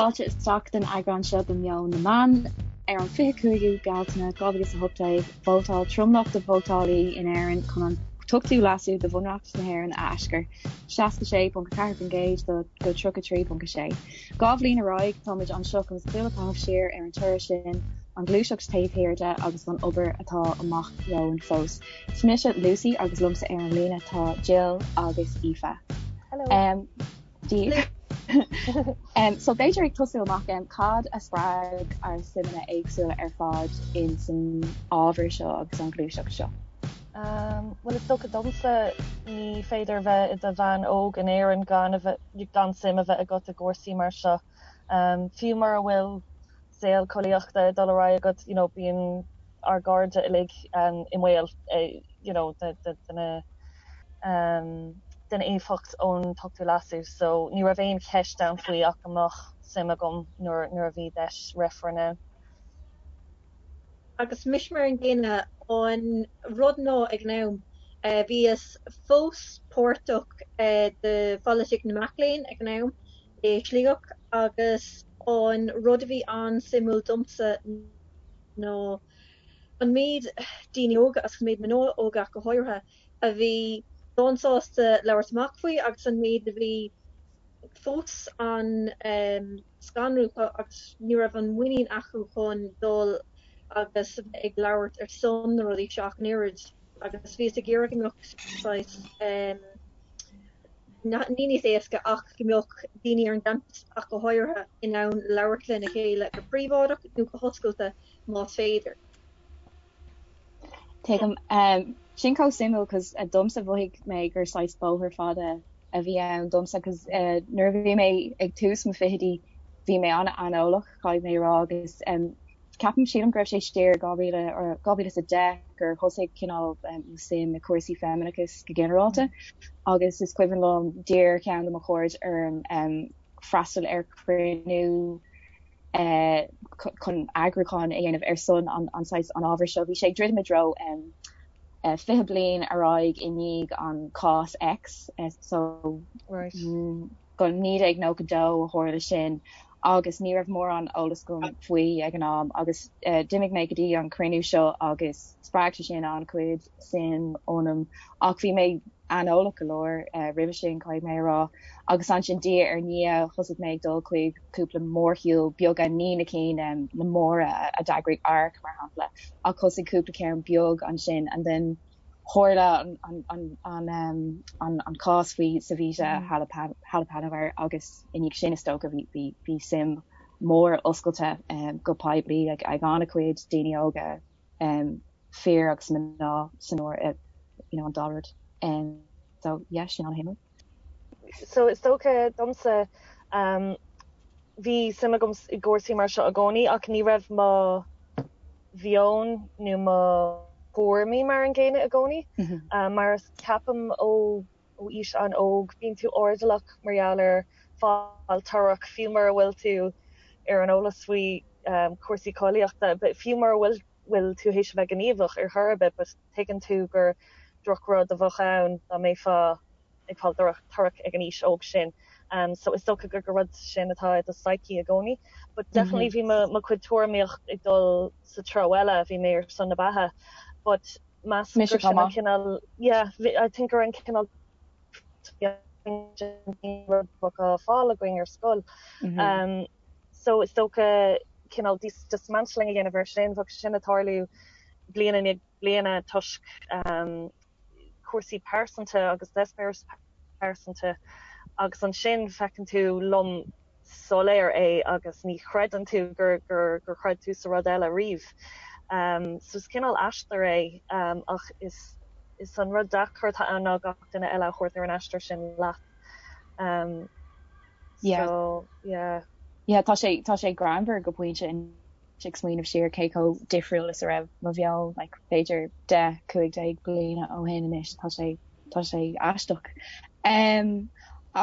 Fáilte isteach don eagrán seo de Meon na Meán. Ar an 25ú Bealtaine 2018, vótáil tromlach de vótálaí in Éirinn chun an t-ochtú leasú de Bhunreacht na hÉireann a aischur, 66.4% do go 33.6. Dhá bhliain ar aghaidh, táimid anseo chun súil a chaitheamh siar ar an toradh sin, an ghluaiseacht taobh thiar de agus an obair atá amach romhainn fós. Is mise Lucy agus liomsa ar an líne tá Jill agus Aoife. Hello. Dia daoibh. So b'fhéidir ag tosú amach, cad a spreag ár suimeanna éagsúla ar fad in san ábhar seo agus an ghluaiseacht seo? Bhuel is dócha domsa ní féidir bheith i do bhean óg in Éirinn gan a bheith gan suim a bheith agat i gcúrsaí mar seo. Fiú mura bhfuil saol collaíochta ag dul ar aghaidh agat, you know, bíonn ár gcairde uilig i mbaol you know, de, de, de na den éifeacht ón t-ochtú leasú. So ní raibh aon cheist ann faoi ach go mbeadh suim agam nuair, nuair a bhí deis reifreann ann. Agus mise mar an gcéanna, an rud ná ag an am, bhíos fós páirteach de pholaitíocht na mac léinn ag an am i Sligeach agus an rud a bhí an-suimiúil domsa ná an méid daoine óga, agus an méid mná óga ach go háirithe, a bhí lánsásta labhairt amach faoi agus an méid a bhí fós an-scanrúil agus ní raibh an muinín acu chun dul agus a bheith ag labhairt ar son na rudaí seo ach an oiread agus bhíos ag iarraidh go mbeadh saghas ní níos éasca ach go mbeadh daoine ar an gcampas ach go háirithe in ann labhairt lena chéile go príobháideach nó go hoscailte más féidir. Tuigim. Sin chomh suimiúil cos domsa mhothaigh mé gur saghas bóthar fada a bhí ann domsa cos nuair a bhí mé ag tús mo fichidí bhí mé an-aineolach caithfidh mé a rá agus ceapaim sílim go raibh sé siar 2000 or 2010 gur thosaigh cineál mo suim i cúrsaí feimineachais go ginearálta agus is cuimhin liom d'iarr ceann de mo chairde orm freastal ar chruinniú chun eagrúchán a dhéanamh ar son an saghas an ábhair seo. Bhí sé ag druidim i dtreo 20 bliain ar aghaidh i ndiaidh an cás X so go 1992 a tharla sin agus ní raibh mórán eolas agam faoi ag an am agus d'imigh mé go dtí an cruinniú seo agus spreag sé sin an-chuid suim ionam ach bhí mé aineolach go leor roimhe sin, caithfidh mé a rá, agus ansin diaidh ar ndiaidh thosaigh mé ag dul chuig cúpla mórshiúl beaga, ní na cinn na móra a d'eagraigh ARC mar shampla, ach thosaigh cúpla ceann beag ansin and then tharla an cás faoi Savita Halappanavar agus i ndiaidh sin is dócha bhí bhí suim mór oscailte go poiblí ag an-chuid daoine óga fir agus mná san áireamh, you know, an dá rud. So yeah, sin an-shuimiúil. So is dócha domsa, bhí suim agam i gcúrsaí mar seo i gcónaí ach ní raibh mo mheon nó mo thuairimí mar an gcéanna i gcónaí. Mar ceapaim ó ó aois an-óg, bíonn tú airdeallach mar gheall ar fáil torrach, fiú mura bhfuil tú ar an eolas faoi chúrsaí collaíochta, fiú mura bhfuil bhfuil tú théis a bheith gníomhach ar chor ar bith, but tuigeann tú gur drochrud a bheadh ann dá mbeifeá ag fáil torrach ag an aois óg sin. So is dócha gur gur rud sin atá i do psyche i gcónaí. But definitely bhí mo mo chuid tuairimíocht ag dul sa treo eile, bhí mé ar son na beatha. But meas Mise gur chomh sin an maith. cineál, yeah, I think gur an cineál rud a bheadh á fáil againn ar scoil. So is dócha cineál dismantling a dhéanamh ar sin, bheadh sin ag tarlú bliain i ndiaidh bliana toisc cúrsaí pearsanta agus eispéireas pearsanta agus ansin feiceann tú lom soiléir é agus ní chreideann tú gur gur gur chreid tú sa rud eile riamh. So is cineál aistear é ach is is an rud deacair atá ann ná gach duine eile a thabhairt ar an aistear sin leat. Yeah. So yeah. Yeah, tá sé tá sé greannmhar go pointe ag smaoineamh siar cé chomh difriúil is a raibh mo mheon like b'fhéidir 10, 15 bliana ó shin anois, tá sé tá sé aisteach. Um,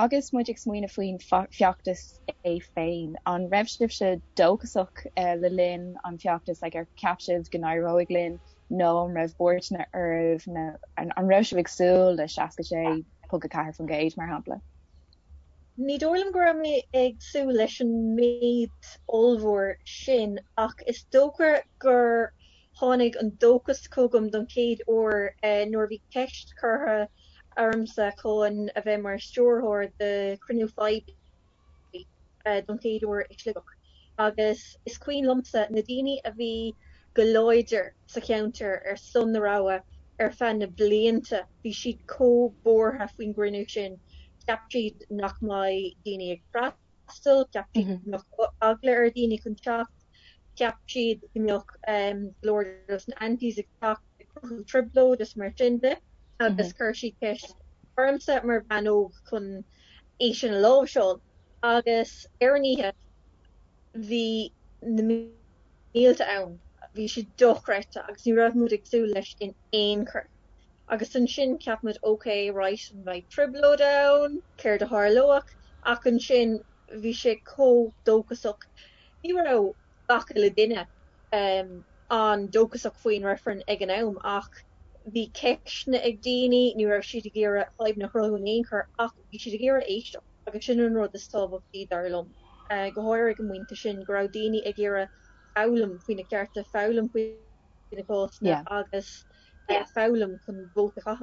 agus muid ag smaoineamh faoin feachtas é féin, an raibh sibhse dóchasach uh, le linn an feachtas like, ar cheap sibh go n-éireoidh linn nó an raibh buairteanna oraibh nó an, an raibh sibh ag súil le 66.4% mar shampla? Ní dóigh liom go raibh mé ag súil leis an méid ollmhór sin ach is dócha gur tháinig an dóchas chugam don chéad uair nuair a bhí ceist curtha ormsa chun a bheith mar stiúrthóir de chruinniú poiblí don chéad uair i Sligeach. Agus is cuimhin liomsa na daoine a bhí go láidir sa cheantar ar son na rogha ar feadh na blianta, bhí siad chomh buartha faoin gcruinniú sin. Cheap siad nach mbeidh daoine ag freastal, cheap siad go mbeadh eagla ar dhaoine chun teacht, cheap siad go mbeadh go leor dos na antis ag teacht ag cruthú trioblóid is mar sin de agus chuir siad ceist ormsa mar bhean óg chun é sin a láimhseáil. Agus ar an oíche bhí na mílte ann, bhí sé dochreidte agus ní raibh muid ag súil leis in aon chor. Agus ansin cheap muid ok, right, an mbeidh trioblóid ann, céard a tharlódh? Ach ansin bhí sé chomh dóchasach. Ní raibh gach uile duine an-dóchasach faoin reifreann ag an am ach bhí ceisteanna ag daoine, ní raibh siad ag iarraidh fadhbanna a chruthú in aon chor ach bhí siad ag iarraidh éisteacht agus sin an rud is tábhachtaí dar liom, go háirithe ag an bpointe sin, go raibh daoine ag iarraidh foghlaim faoi na cearta, foghlaim faoi na cásanna agus foghlaim chun vóta a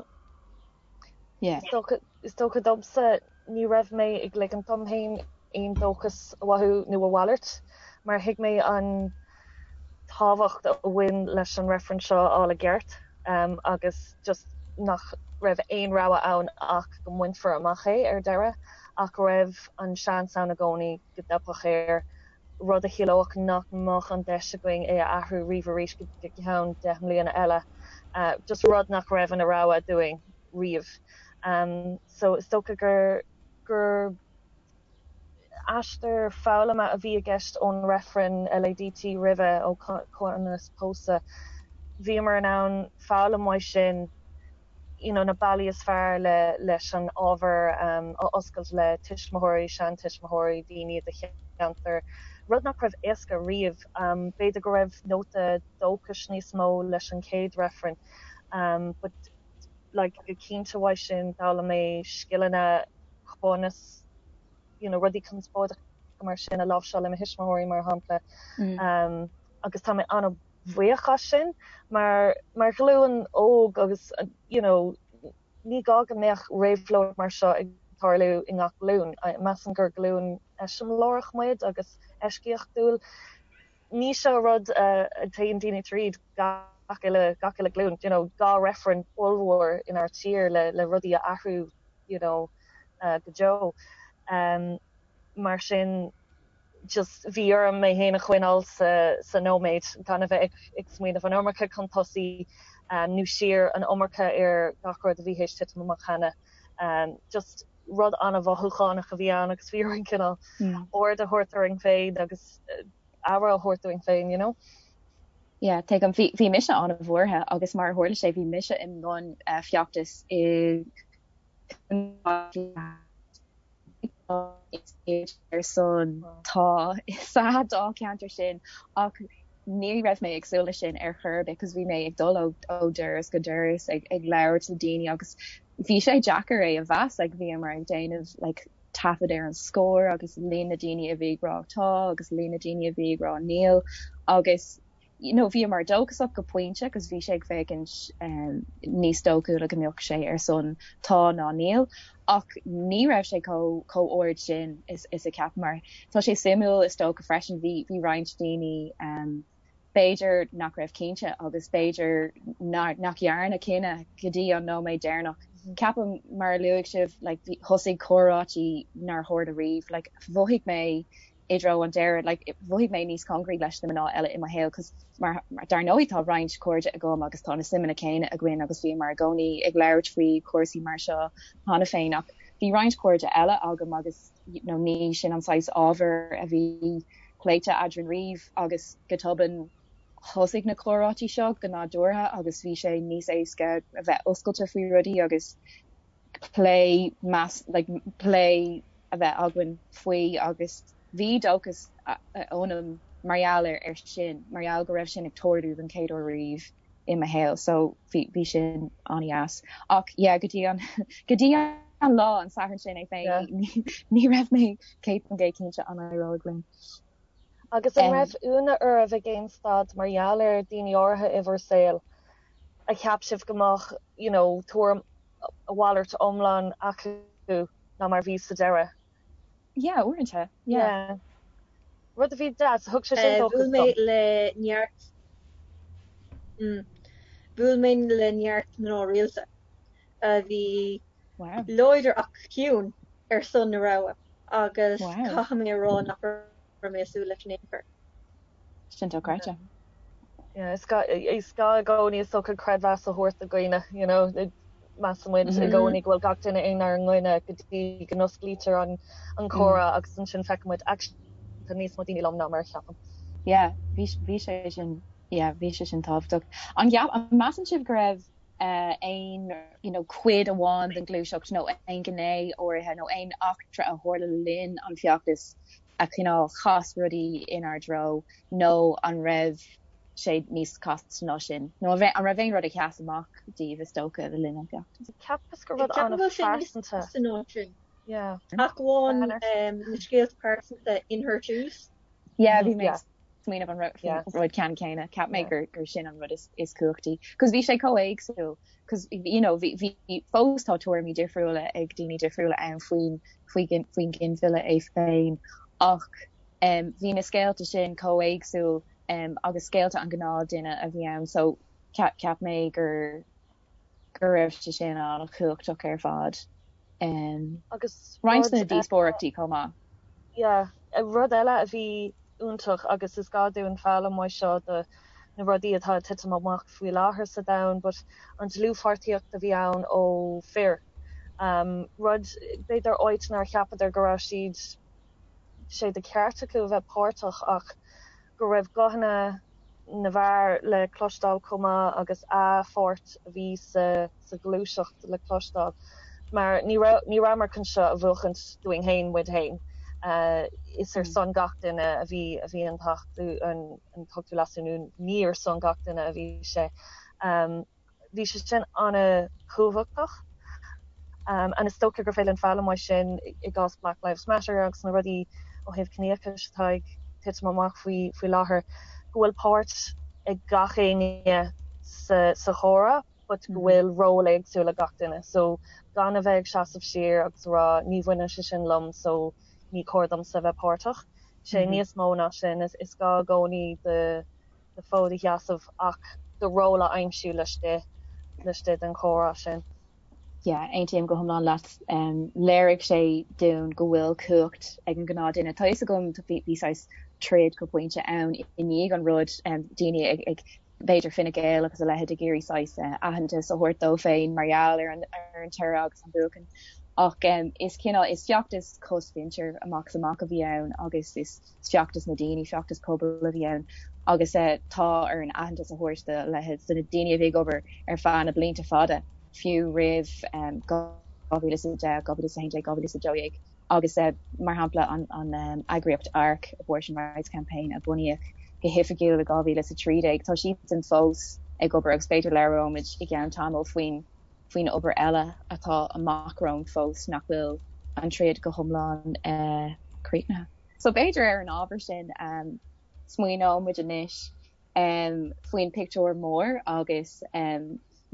chaitheamh. Is dócha domsa, ní raibh mé ag ligint dom féin aon dóchas a mhothú nó a mhalairt, mar thuig mé an tábhacht a bhain leis an reifreann seo a fháil i gceart agus just nach raibh aon rogha ann ach go mbainfear amach é ar deireadh, ach go raibh an seans ann i gcónaí go dteipfeadh air. rud a chiallódh nach mbeadh an deis againn é a athrú riamh arís go ceann 10 mbliana eile, just rud nach raibh ina rogha dúinn riamh. So is dócha gur gur aistear foghlama a bhí i gceist ón reifreann LADT roimhe, ó comhionannas pósadh. Bhíomar in ann foghlaim uaidh sin you know na bealaí is fearr le leis an ábhar a oscailt le tuismitheoirí, seantuismitheoirí, daoine i do cheantar, rud nach raibh éasca riamh. B'fhéidir go raibh nóta dóchais níos mó leis an chéad reifreann but like go cinnte uaidh sin d'fhoghlaim mé scileanna conas you know rudaí conspóideacha mar sin a láimhseáil le mo thuismitheoirí mar shampla agus tá mé an bhuíoch as sin mar mar ghlúin óg agus you know ní gá go mbeadh réabhlóid mar seo ag tarlú i ngach glúin. Measaim gur glúin eiseamláireach muid agus eisceachtúil. Ní seo rud a dtéann daoine tríd gach uile gach uile glúin, you know 2 reifreann ollmhór inár tír le le rudaí a athrú you know go deo. Mar sin just bhí orm mé féin a choinneáil sa sa nóiméad, gan a bheith ag ag smaoineamh an iomarca chun tosaigh nó siar, an iomarca ar gach rud a bhí théis titim amach cheana. Just rud an-mhothúchánach a bhí ann agus bhí orainn cineál ord a thabhairt orainn féin agus aire a thabhairt dúinn féin, you know. Yeah, tuigim. Bhí bhí mise an-bhuartha agus mar a tharla sé bhí mise i mbun feachtais i ar son tá sa dáilcheantar sin ach ní raibh mé ag súil leis sin ar chor ar bith cos bhí mé ag dul ó ó doras go doras ag ag labhairt le daoine agus bhí sé deacair é a mheas like bhíomar ag déanamh like taifead ar an scór agus líon na daoine a bhí ag rá tá agus líon na daoine a bhí ag rá níl agus you know bhíomar dóchasach go pointe agus bhí sé ag féachaint níos dóchúla go mbeadh sé ar son tá ná níl ach ní raibh sé chomh chomh ard sin is is a cheapamar. Tá sé suimiúil is dócha freisin bhí bhí roinnt daoine b'fhéidir nach raibh cinnte agus b'fhéidir nach dhearna cinneadh go dtí an nóiméad deireanach. Ceapaim mar a luaigh sibh like thosaigh comhráití nár tharla riamh like mhothaigh mé i dtreo an deiridh, like, mhothaigh mé níos cóngaraí leis na mná eile i mo shaol cos mar, mar, dar ndóigh tá roinnt cairde agam agus tá na suimeanna céanna againn agus bhíomar i gcónaí ag labhairt faoi chúrsaí mar seo cheana féin ach bhí roinnt cairde eile agam agus you know ní sin an saghas ábhair a bhí pléite eadrainn riamh agus go tobann thosaigh na comhráití seo go nádúrtha agus bhí sé níos éasca a bheith oscailte faoi rudaí agus plé meas like plé a bheith againn faoi agus bhí dóchas ionam mar gheall ar ar sin, mar gheall go raibh sin ag tarlú don chéad uair riamh i mo shaol so bhí bhí sin an-dheas. Ach yeah go dtí an go dtí an. an lá an Satharn sin é féin ní raibh mé 100% cinnte an éireoidh linn. Agus an raibh ionadh oraibh ag aon staid mar gheall ar daoine áirithe i bhur saol a cheap sibh go mbeadh you know tuairim a mhalairt iomlán acu ná mar bhí sa deireadh? Yeah, uaireanta, yeah. Yeah. Rud a bhí deas, thug sé sin dóchas Bhuail mé dom. le neart mm, bhuail mé le neart mná rialta a bhí Wow. láidir ach ciúin ar son na rogha agus Wow. caithfidh mé a rá nach raibh mé ag súil leis in aon chor. Sin dochreidte. Yeah, is gá is gá i gcónaí is dócha creidmheas a thabhairt do dhaoine, you know, measann muid i gcónaí go bhfuil gach duine inár gcoinne go dtí go n-osclaítear an an comhrá agus ansin feiceann muid actually tá níos mó daoine liom ná mar a cheapaim. Yeah, bhí bhí sé sin yeah, bhí sé sin tábhachtach. An gceap an measann sibh go raibh aon you know cuid amháin den ghluaiseacht nó aon ghné áirithe nó aon eachtra a tharla le linn an feachtais a chineál chas rudaí inár dtreo nó an raibh sé níos casta ná sin? Nó an raibh aon rud a sheas amach daoibh is dócha le linn an feachtais? Cheapas gur rud Ceapaim go bhfuil sé níos an-phearsanta. casta ná sin. Yeah. Ach amháin na scéalta pearsanta In Her Shoes. Yeah, bhí mé ag smaoineamh an rud ceann céanna. Cheap mé gur gur sin an rud is is cumhachtaí. Cos bhí sé chomh éagsúil. Cos you know bhí bhí fós tá tuairimí difriúla ag daoine difriúla ann faoin faoi faoin ginmhilleadh é féin. Ach um bhí na scéalta sin chomh éagsúil um agus scéalta an ghnáthduine a bhí ann. So cheap cheap mé gur go raibh sé sin an-chumhachtach ar fad. Agus Roinnt rud de na díospóireachtaí chomh maith. Yeah, rud eile a bhí iontach agus is gá dúinn foghlaim uaidh seo do na rudaí atá ag titim amach faoi láthair sa domhan but an dlúthpháirtíocht a bhí ann ó fir. Rud, b'fhéidir áit nár cheapadar go raibh siad, sé de cheart acu a bheith páirteach ach go raibh guthanna na bhfear le cloisteáil chomh maith agus a pháirt a bhí sa sa ghluaiseacht le cloisteáil mar ní raibh ní rabhamar chun seo a bhuachaint dúinn féin muid féin. Is ar son gach duine a bhí a bhí an t-acht an an t-ochtú leasú nó ní ar son gach duine a bhí sé. Bhí sé sin an-chumhachtach and is dócha gur féidir linn foghlaim uaidh sin i gcás Black Lives Matter agus na rudaí ó thaobh ciníochais atá ag titim amach faoi faoi láthair, go bhfuil páirt ag gach éinne sa sa chomhrá but go bhfuil ról éagsúil ag gach duine. So gan a bheith ag seasamh siar agus a rá ní bhaineann sé sin liom so ní cóir domsa a bheith páirteach. Sé níos mó ná sin, is gá i gcónaí do do fód a sheasamh ach do ról a aimsiú laistigh, laistigh den chomhrá sin. Yeah, aontaím go hiomlán leat. Léirigh sé dúinn go bhfuil cumhacht ag an ghnáthduine. Tá fhios agam, bhí saghas troid go pointe ann i ndiaidh an rud, daoine ag, ag, b'fhéidir Fine Gael agus a leithéid ag iarraidh saghas aitheantas a thabhairt dóibh féin mar gheall ar an, ar an toradh agus an buachan. Ach is cineál, is feachtas cosmhuintir amach is amach a bhí ann agus is, feachtas na daoine, feachtas pobail a bhí ann agus tá orainn aitheantas a thabhairt do leithéid de na daoine a bhí ag obair ar feadh na blianta fada, fiú roimh 2010, 2011, 2012 agus mar shampla an eagraíocht ARC, Abortion Rights Campaign, a bunaíodh go hoifigiúil i 2013, tá siadsan fós ag obair agus b'fhéidir labhróimid i gceann tamaill faoin faoin obair eile atá amach romhainn fós nach bhfuil an troid go hiomlán críochnaithe. So b'fhéidir ar an ábhar sin smaoineoidh muid anois faoin pictiúr mór agus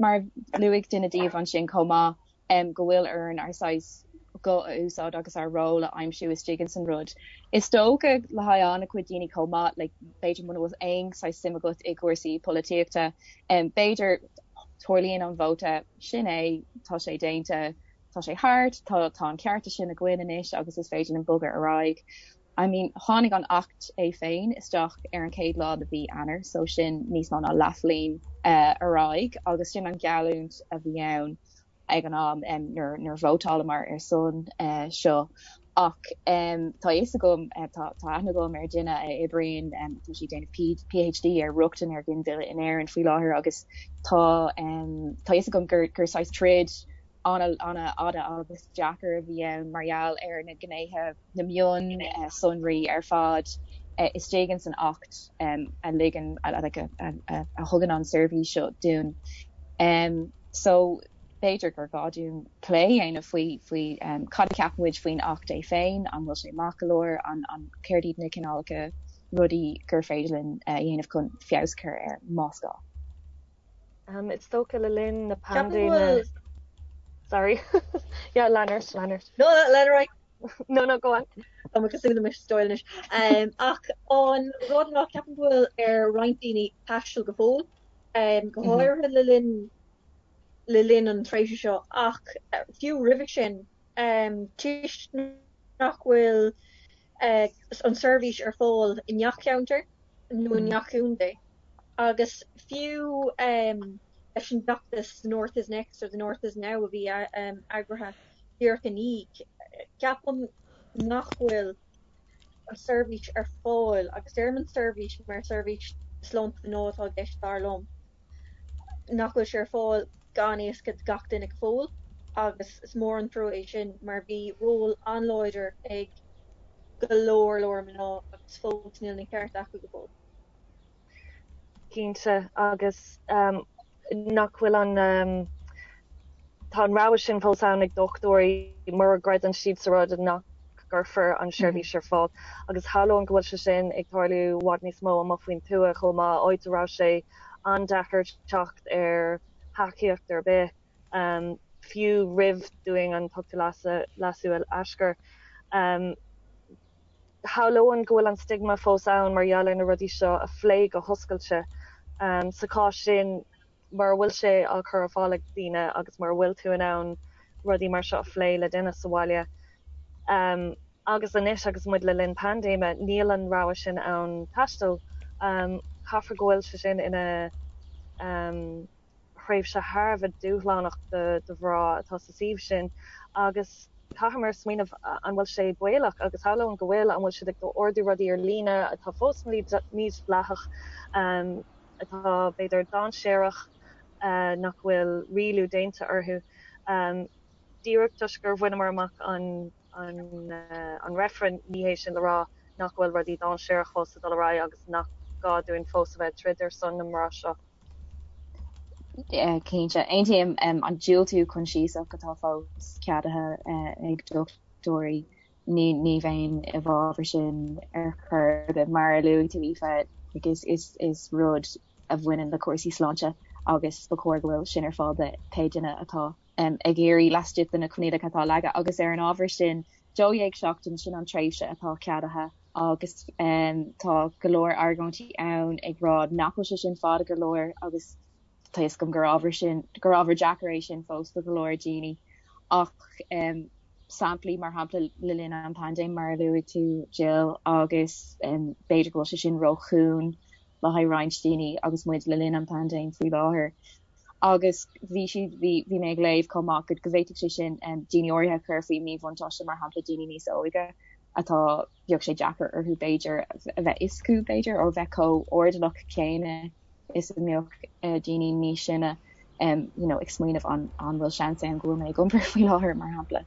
mar a luaigh duine díobh ansin chomh maith go bhfuil orainn ár saghas guth a úsáid agus ár ról a aimsiú istigh ins an rud. Is dócha le haghaidh an-chuid daoine chomh maith, like b'fhéidir muna bhfuil aon saghas suim agat i gcúrsaí polaitíochta, b'fhéidir tarlaíonn an vóta, sin é, tá sé déanta, tá sé thart, tá tá an cearta sin againn anois agus is féidir linn bogadh ar aghaidh. I mean, tháinig an Acht é féin isteach ar an chéad lá de mhí Eanáir, so sin níos mó ná leathbhliain ar aghaidh agus sin an gheallúint a bhí ann ag an am nuair nuair a vótálamar ar son seo. Ach tá a fhios agam, tá tá aithne agam ar dhuine a oibríonn, tá sí ag déanamh PhD ar rochtain ar ghinmhilleadh in Éirinn faoi láthair agus tá tá a fhios agam gur gur saghas troid an-fhada agus deacair a bhí ann mar gheall ar na gnéithe, na mionsonraí ar fad istigh ins an Acht a ligeann, like a thugann an seirbhís seo dúinn. So. B'fhéidir gur gá dúinn plé a dhéanamh faoi faoi cad a cheapann muid faoin Acht é féin, an bhfuil sé maith go leor, an an céard iad na cineálacha rudaí gur féidir linn a dhéanamh chun feabhas a chur air más gá. Is dócha le linn na paindéime. Sorry. Yeah, lean ort, lean ort. No, lean ar aghaidh. No, no, go on. Tá mé cosúil le Mrs Doyle anois. Ach an rud ná ceapaim go bhfuil ar roinnt daoine taisteal go fóill, go háirithe le linn le linn an tréimhse seo ach fiú roimhe sin, toisc nach bhfuil an seirbhís ar fáil i ngach ceantar nó i ngach contae agus fiú leis an bhfeachtas The North is Next or The North is Now a bhí eagraithe díreach i ndiaidh, ceapaim nach bhfuil an seirbhís ar fáil agus deirim an seirbhís mar seirbhís sláinte mná atá i gceist dar liom. nach bhfuil sé ar fáil gan éasca do gach duine go fóill agus is mór an trua é sin mar bhí ról an-láidir ag go leor leor mná agus fós níl na cearta acu go fóill. Cinnte, agus nach bhfuil an, tá an rogha sin fós ann ag dochtúirí mura gcreideann siad sa rud nach gcuirfear an seirbhís ar fáil agus shamhlóinn go bhfuil sé sin ag tarlú i bhfad níos mó amuigh faoin tuath chomh maith, áit a raibh sé an-deacair teacht ar thacaíocht ar bith, fiú roimh dúinn an tOchtú Leasú a aischur. Shamhlóinn go bhfuil an stigma fós ann mar gheall ar na rudaí seo a phlé go hoscailte. Sa chás sin, mura bhfuil sé á chur ar fáil ag daoine agus mura bhfuil tú in ann rudaí mar seo a phlé le duine sa bhaile, agus anois agus muid le linn paindéime, níl an rogha sin ann taisteal. Caithfear go bhfuil sé sin ina thréimhse thar a bheith dúshlánach do mhná atá sa suíomh sin agus caithfimid smaoineamh an bhfuil sé baolach agus shamhlóinn go bhfuil, an bhfuil siad ag ordú rudaí ar líne atá fós mídhleathach. atá, b'fhéidir, dainséarach, nach bhfuil rialú déanta orthu. Díreach toisc gur bhaineamar amach an an reifreann, ní hé sin le rá nach bhfuil rudaí dainséarach fós ag dul ar aghaidh agus nach gá dúinn fós a bheith ag troid ar son na mná seo. Cinnte. Aontaím. An diúltú coinsiasach atá fós ceadaithe ag dochtúirí Ní ní bheinn i bhfabhar sin ar chor ar bith. Mar a luaigh tú Aoife, like is is is rud a bhaineann le cúrsaí sláinte agus ba chóir go bhfuil sin ar fáil do pé duine atá ag iarraidh laistigh de na coinníollacha atá leagtha. Agus ar an ábhar sin, 12 seachtain, sin an tréimhse atá ceadaithe agus tá go leor argóintí ann ag rá nach bhfuil sé sin fada go leor agus tá fhios agam gur ábhar sin gur ábhar deacair é sin fós do go leor daoine ach samplaí mar shampla le linn an paindéim mar a luaigh tú Jill agus b'fhéidir go bhfuil sé sin róchúng le haghaidh roinnt daoine agus muid le linn an paindéim faoi láthair. Agus bhí siad bhí bhí mé ag léamh chomh maith go go bhféadfadh sé sin daoine áirithe a chur faoi mhíbhuntáiste mar shampla daoine níos óige atá bheadh sé deacair orthu b'fhéidir a bheith fhios acu b'fhéidir ó bheith chomh airdeallach céanna is a mbeadh daoine níos sine you know ag smaoineamh an an bhfuil seans ann go bhfuil mé ag iompar faoi láthair mar shampla.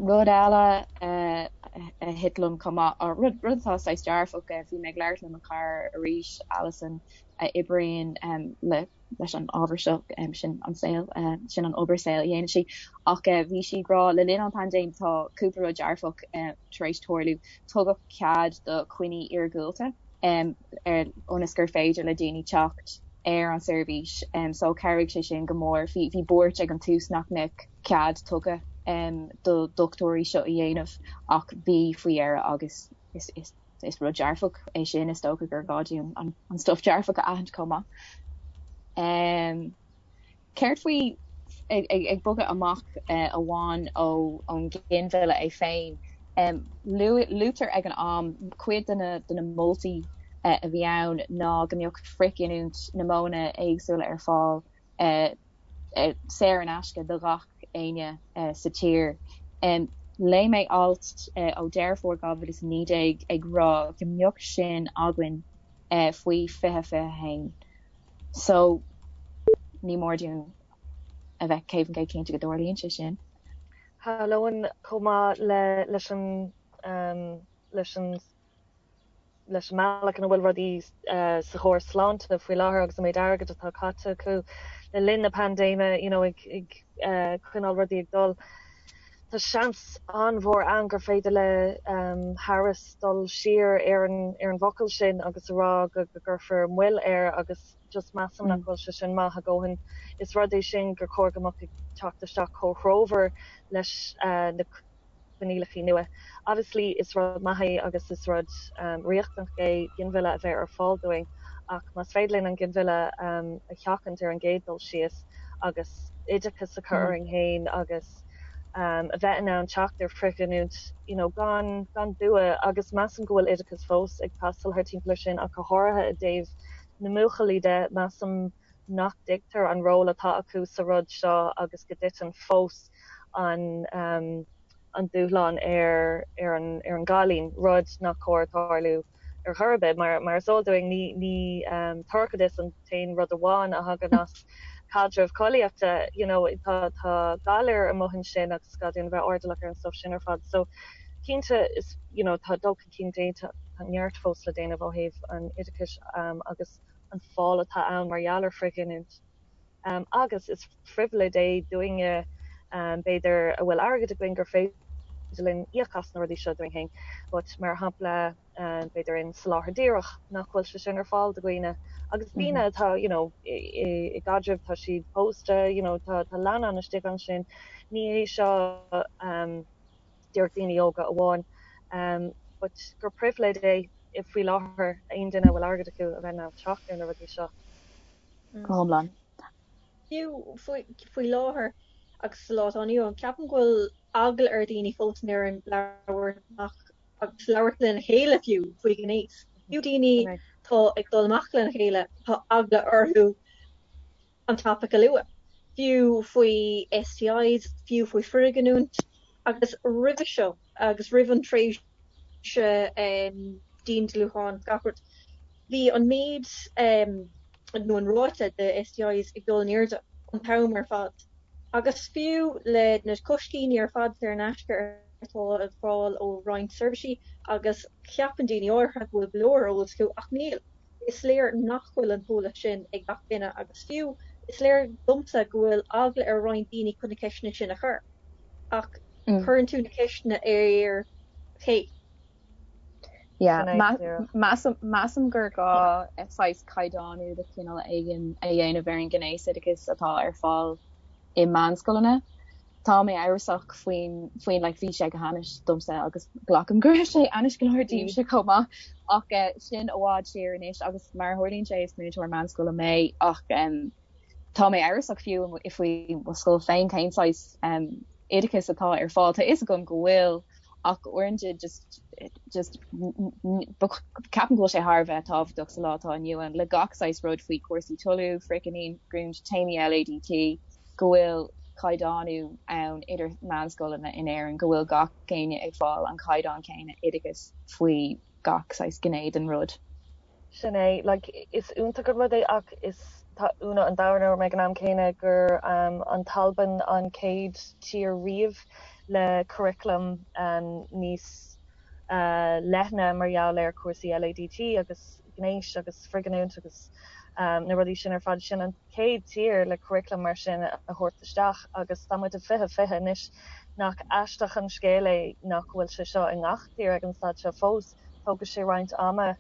Rud eile a thit liom chomh maith, rud rud atá saghas dearfach, bhí mé ag labhairt le mo chara arís, Alison, a oibríonn le leis an ábhar seo, sin an saol, sin an obair saoil a dhéanann sí, ach bhí sí ag rá le linn an paindéim tá cúpla rud dearfach tar éis tarlú, tugadh cead do choinní iargúlta. ionas gur féidir le daoine teacht ar an seirbhís so chabhraigh sé sin go mór. Bhí bhí buairt ag an tús nach mbeadh cead tugtha do dhochtúirí seo a dhéanamh ach bhí faoi dheireadh agus is is is rud dearfach é sin is dócha gur gá dúinn an an stuff dearfach a aithint chomh maith. Céard faoi ag bogadh amach amháin ón ghinmhilleadh é féin? Luaitear ag an am, cuid de na moltaí a bhí ann ná go mbeadh frithghiniúint na modhanna éagsúla ar fáil saor in aisce do ghach éinne sa tír. Léigh mé alt ó Deireadh Fómhair 2019 ag rá go mbeadh sin againn faoi 2021. So, ní mór dúinn a bheith 100% cinnte go dtarlaíonn sé sin. Shamhlóinn chomh maith le leis an leis an Leis an mbealach ina bhfuil rudaí sa chóras sláinte faoi láthair agus an méid airgid atá caite acu le linn na paindéime you know ag ag coinneáil rudaí ag dul, tá seans an-mhór ann gur féidir le Harris dul siar ar an ar an bhfocal sin agus a rá go go gcuirfear moill air agus just measaim nach bhfuil sé sin maith a dhóthain. Is rud é sin gur chóir go mbeadh ag teacht isteach chomh threomhar leis na coinníollacha nua. Obviously is rud maith é agus is rud riachtanach é ginmhilleadh a bheith ar fáil dúinn ach más féidir linn an ginmhilleadh a sheachaint ar an gcéad dul síos agus oideachas a chur orainn féin agus a bheith in ann teacht ar frithghiniúint you know gan gan dua agus measaim go bhfuil oideachas fós ag teastáil thar timpeall ar sin ach go háirithe i dtaobh na mbuachaillí de measaim nach dtuigtear an ról atá acu sa rud seo agus go dtiteann fós an an dúshlán ar ar an ar an gcailín, rud nach cóir tarlú ar chor ar bith. Mar mar is eol dúinn ní ní toircheadas an t-aon rud amháin a thagann as caidreamh collaíochta, you know tá tá galair amuigh ansin agus gá dúinn a bheith airdeallach ar an stuff sin ar fad. So cinnte is you know tá dul chun cinn déanta, tá neart fós le déanamh ó thaobh an oideachais agus an fáil atá ann mar gheall ar frithghiniúint. Agus is phribhléid é dúinne, b'fhéidir, a bhfuil airgead againn gur féidir linn íoc as na rudaí seo dúinn féin. But mar shampla, b'fhéidir in soláthar díreach, nach bhfuil sé sin ar fáil do dhaoine. Agus daoine atá, you know, i gcaidreamh, tá siad pósta, you know, tá leannán istigh ansin. Ní hé seo díreach daoine óga amháin. But gur pribhléid é faoi láthair aon duine a bhfuil airgead acu a bheith in ann teacht ar na rudaí seo. Go hiomlán. Fiú faoi láthair agus sa lá atá inniu ann, ceapaim go bhfuil eagla ar dhaoine fós in Éirinn labhairt amach agus labhairt lena chéile fiú faoi ghnéas. Fiú daoine atá ag dul amach lena chéile, tá eagla orthu an topaic a lua, fiú faoi STIs, fiú faoi frithghiniúint agus roimhe seo agus roimh an tréimhse diandealúcháin gach rud. Bhí an méid nó an ráta de STIs ag dul in airde an t-am ar fad. Agus fiú le na coiscíní ar fad saor in aisce atá ar fáil ó roinnt seirbhísí agus ceapann daoine áirithe go bhfuil go leor eolas acu ach níl. Is léir nach bhfuil an t-eolas sin ag gach duine agus fiú is léir domsa go bhfuil eagla ar roinnt daoine chun na ceisteanna sin a chur. Ach cuireann tú na ceisteanna ar cé? Yeah, measaim gur gá saghas caighdeánú de chineál éigin a dhéanamh ar an ngnéasoideachas atá ar fáil i meánscoileanna. Tá mé amhrasach faoin, faoin, like, bhí sé go hainnis domsa agus glacaim go raibh sé ainnis go leor daoibhse chomh maith ach sin i bhfad siar anois agus mar a tharlaíonn sé is múinteoir meánscoile mé ach tá mé amhrasach fiú faoi mo scoil féin cén saghas oideachas atá ar fáil. Tá a fhios agam go bhfuil ach uaireanta just just ceapaim go bhfuil sé thar a bheith tábhachtach sa lá atá inniu ann le gach saghas rud faoi chúrsaí toiliú, frithghiniúint, téamaí LADT, go bhfuil caighdeánú ann idir meánscoileanna in Éirinn, go bhfuil gach éinne ag fáil an caighdeán céanna oideachais faoi gach saghas gné den rud. Sin é, like, is iontach an rud é ach is tá ionadh an domhain orm ag an am céanna gur an tAlbain an chéad tír riamh le curriculum níos leithne mar gheall ar chúrsaí LADT agus gnéis agus frithghiniúint agus na rudaí sin ar fad. Sin an chéad tír le curriculum mar sin a thabhairt isteach agus tá muid i 2020 anois. Nach aisteach an scéal é nach bhfuil sé seo i ngach tír ag an staid seo fós? Tógfaidh sé roinnt ama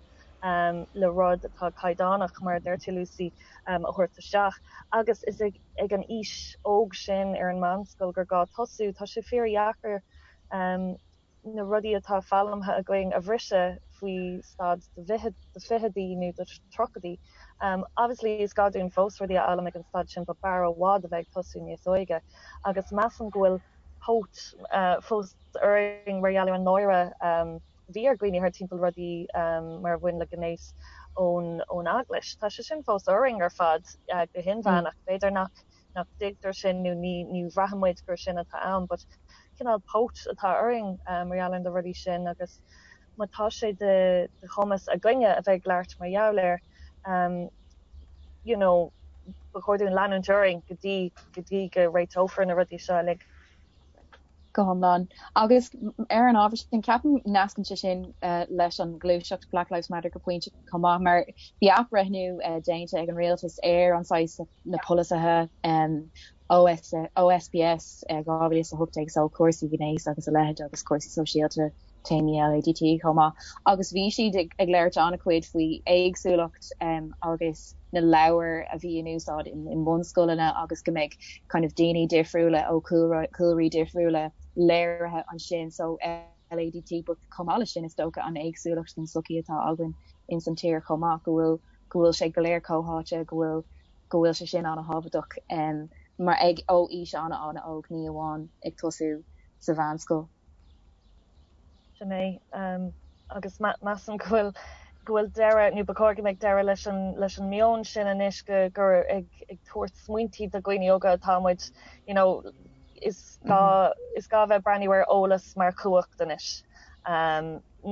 le rud atá caighdeánach, mar a deir tú Lucy, a thabhairt isteach. Agus is ag an aois óg sin ar an meánscoil gur gá tosú. Tá sé fíordheacair na rudaí atá foghlamtha againn a bhriseadh faoi staid do fichidí nó do tríochaidí. Obviously is gá dúinn fós rudaí a fhoghlaim ag an staid sin but b'fhearr i bhfad a bheith ag tosú níos óige. Agus measaim go bhfuil póit fós orainn mar gheall ar an náire a bhí ar dhaoine thar timpeall rudaí mar a bhain le gnéas ón ón eaglais. Tá sé sin fós orainn ar fad go hinmheánach. B'fhéidir nach nach dtuigtear sin nó ní ní bhraitheann muid gur sin atá ann but cineál póit atá orainn mar gheall ar na rudaí sin agus má tá sé de de chumas againne a bheith ag labhairt mar gheall air you know ba chóir dúinn leanúint orainn go dtí go dtí go réiteofar na rudaí seo uilig. Go hiomlán. Agus ar an ábhar sin, ceapaim nascann sé sin leis an ghluaiseacht Black Lives Matter go pointe chomh maith, mar bhí athbhreithniú déanta ag an rialtas ar an saghas na polasaithe OS, OSPS 2018 so cúrsaí gnéis agus a leithéid agus cúrsaí sóisialta, téamaí LADT chomh maith. Agus bhí siad ag labhairt an-chuid faoi éagsúlacht agus na leabhair a bhí in úsáid i mbunscoileanna agus go mbeidh kind of daoine difriúla ó chúlraí difriúla léirithe ansin so LADT but chomh maith leis sin is dócha an éagsúlacht den tsochaí atá againn ins an tír chomh maith go bhfuil go bhfuil sé go léir comhtháite go bhfuil go bhfuil sé sin an-thábhachtach mar ag ó aois an-an-óg ní amháin ag tosú sa mheánscoil. Sin é. Agus measaim go bhfuil go bhfuil deireadh, nó ba chóir go mbeadh deireadh leis an leis an meon sin anois go gur ag ag tabhairt smaointí do dhaoine óga atá muid, you know, is gá is gá bheith breathnú ar eolas mar chumhacht anois.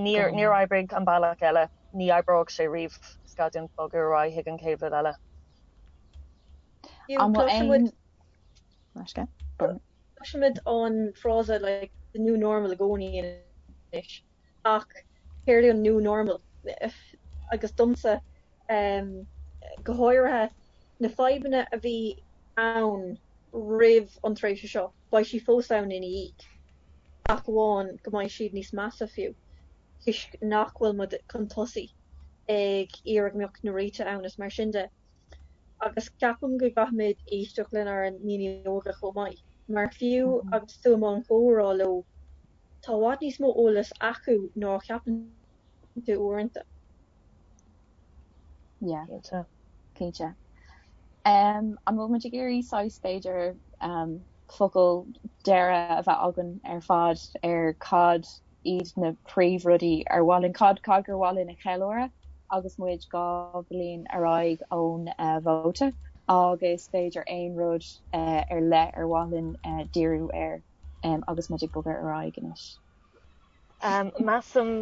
Níor níor oibrigh an bealach eile, ní oibreoidh sé riamh. Is gá dúinn bogadh ar aghaidh chuig an chéad rud eile. An bhfuil aon Cloisimid an frása like the new normal i gcónaí anois ach céard é an new normal? Agus domsa go háirithe na fadhbanna a bhí ann roimh an tréimhse seo, beidh siad fós ann ina dhiaidh ach amháin go mbeidh siad níos measa fiú toisc nach bhfuil muid chun tosaigh ag iarraidh go mbeadh na réitigh ann is mar sin de. Agus ceapaim go gcaithfimid éisteacht lenár ndaoine óga chomh maith, mar fiú agus tú i mbun comhrá leo, tá i bhfad níos mó eolas acu ná a cheapann tú uaireanta. Yeah. Cinnte. Cinnte. An bhfuil muid ag iarraidh saghas b'fhéidir focal deireadh a bheith againn ar fad ar cad iad na príomhrudaí ar mhaith linn, cad cad gur mhaith linn a cheiliúradh agus muid 2 bhliain ar aghaidh ón vóta agus b'fhéidir aon rud ar leith ar mhaith linn díriú air agus muid ag bogadh ar aghaidh anois. Measaim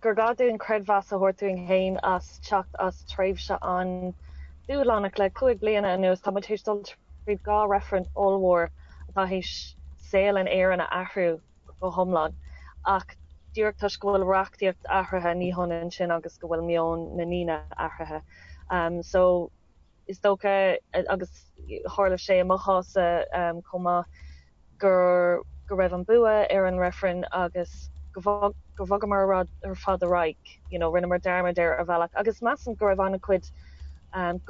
gur gá dúinn creidmheas a thabhairt dúinn féin as teacht as tréimhse an-dúshlánach le 5 bliana anuas. Tá muid théis dul tríd 2 reifreann ollmhór atá théis saol in Éirinn a athrú go hiomlán. Ach díreach toisc go bhfuil reachtaíocht athraithe ní hionann sin agus go bhfuil meon na ndaoine athraithe. So is dócha, agus tharla sé i mo chás-sa chomh maith, gur go raibh an bua ar an reifreann agus go gur bhogamar ar fad ar aghaidh, you know, rinneamar dearmad air ar bhealach. Agus measaim go raibh an-chuid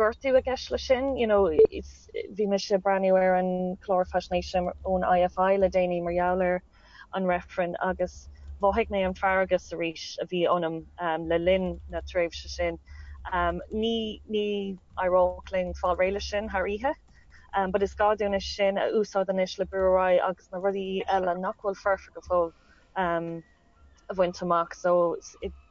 gortú i gceist leis sin, you know, bhí mise ag breathnú ar an chlár faisnéise ón IFI le déanaí mar gheall ar an reifreann agus mhothaigh mé an feargas arís a bhí ionam le linn na tréimhse sin. Ní ní éireodh linn fáil réidh leis sin thar oíche, but is gá dúinn é sin a úsáid anois le brú ar aghaidh agus na rudaí eile nach bhfuil foirfe go fóill a bhaint amach. So,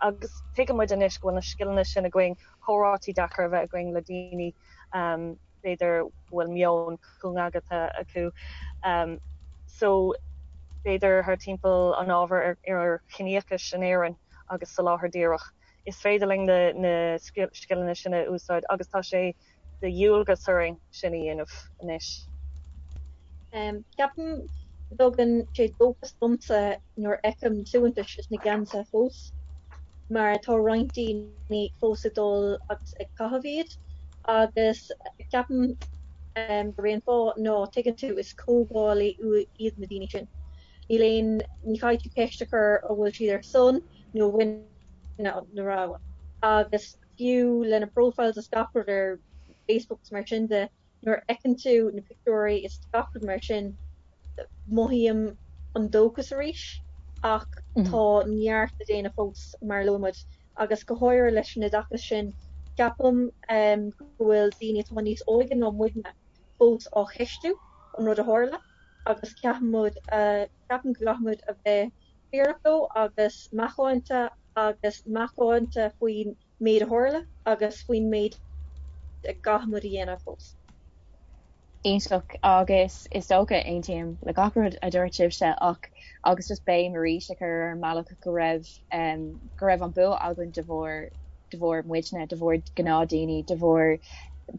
agus tuigeann muid anois go bhfuil na scileanna sin againn, comhráití deacair a bheith againn le daoine b'fhéidir go bhfuil meon cúngaigeanta acu. So, b'fhéidir thar timpeall an ábhair ar chiníochais in Éirinn agus soláthar díreach, is féidir linn na scileanna sin a úsáid agus tá sé de dhualgas orainn sin a dhéanamh anois. Ceapaim go dtugann sé dóchas domsa nuair a fheicim na suaitheantais is na geansaithe fós, mar tá roinnt daoine fós ag dul agus ag caitheamh iad, agus ceapaim gurb é an fáth ná, tuigeann tú, is comhdhálaí iad na daoine sin. Níl aon, ní chaithfidh tú ceist a chur an bhfuil siad ar son nó i gcoinne na rogha. Agus fiú lena profiles is gach rud ar Facebook is mar sin de, nuair a fheiceann tú na pictiúirí is gach rud mar sin, mothaím an dóchas arís ach tá neart le déanamh fós mar a luaigh muid agus go háirithe leis an oideachas sin, ceapaim go bhfuil daoine atá níos óige ná muidne fós á cheistiú an rud a tharla agus ceapaim muid, ceapaim go gcaithfidh muid a bheith fírinneach leo agus macánta agus macánta faoin méid a tharla agus faoin méid a gcaithfidh muid a dhéanamh fós. Iontach agus is dócha, aontaím le gach rud a dúirt sibhse ach agus just béim arís a chur ar an mbealach go raibh go raibh an bua againn de bharr de bharr muidne, de bharr gnáthdhaoine, de bharr.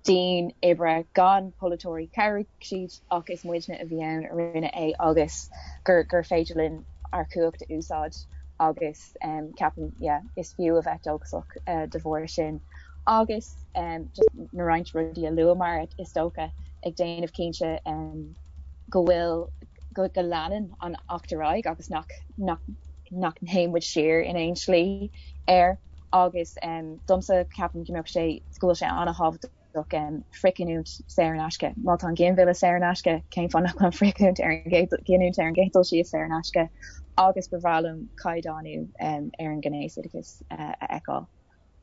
dian oibre gan polaiteoirí, chabhraigh siad ach is muidne a bhí ann a rinne é agus gur gur féidir linn ár cumhacht a úsáid agus ceapaim yeah is fiú a bheith dóchasach de bharr sin agus just na roinnt rudaí a luamar is dócha ag déanamh cinnte go bhfuil go go leanann an Acht ar aghaidh agus nach nach nach dtéann muid siar in aon slí air agus domsa ceapaim go mbeadh sé go bhfuil sé an-thábhachtach frithghiniúint saor in aisce. Má tá an ginmhilleadh saor in aisce, cén fáth nach bhfuil an frithghiniúint ar an gcéad ghiniúint ar an gcéad dul síos saor in aisce agus ba bhreá liom caighdeánú ar an ngnéasoideachas a fheiceáil.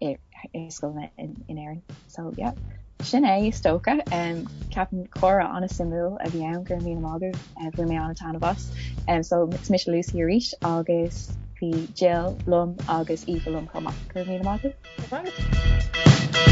i scoileanna in Éirinn. So yeah. Sin é is dócha. Ceapaim comhrá an-suimiúil a bhí ann go raibh míle maith agaibh. Bhain mé an-taitneamh as. So is mise Lucy arís agus bhí Jill liom agus Aoife liom chomh maith. Go raibh míle maith agaibh.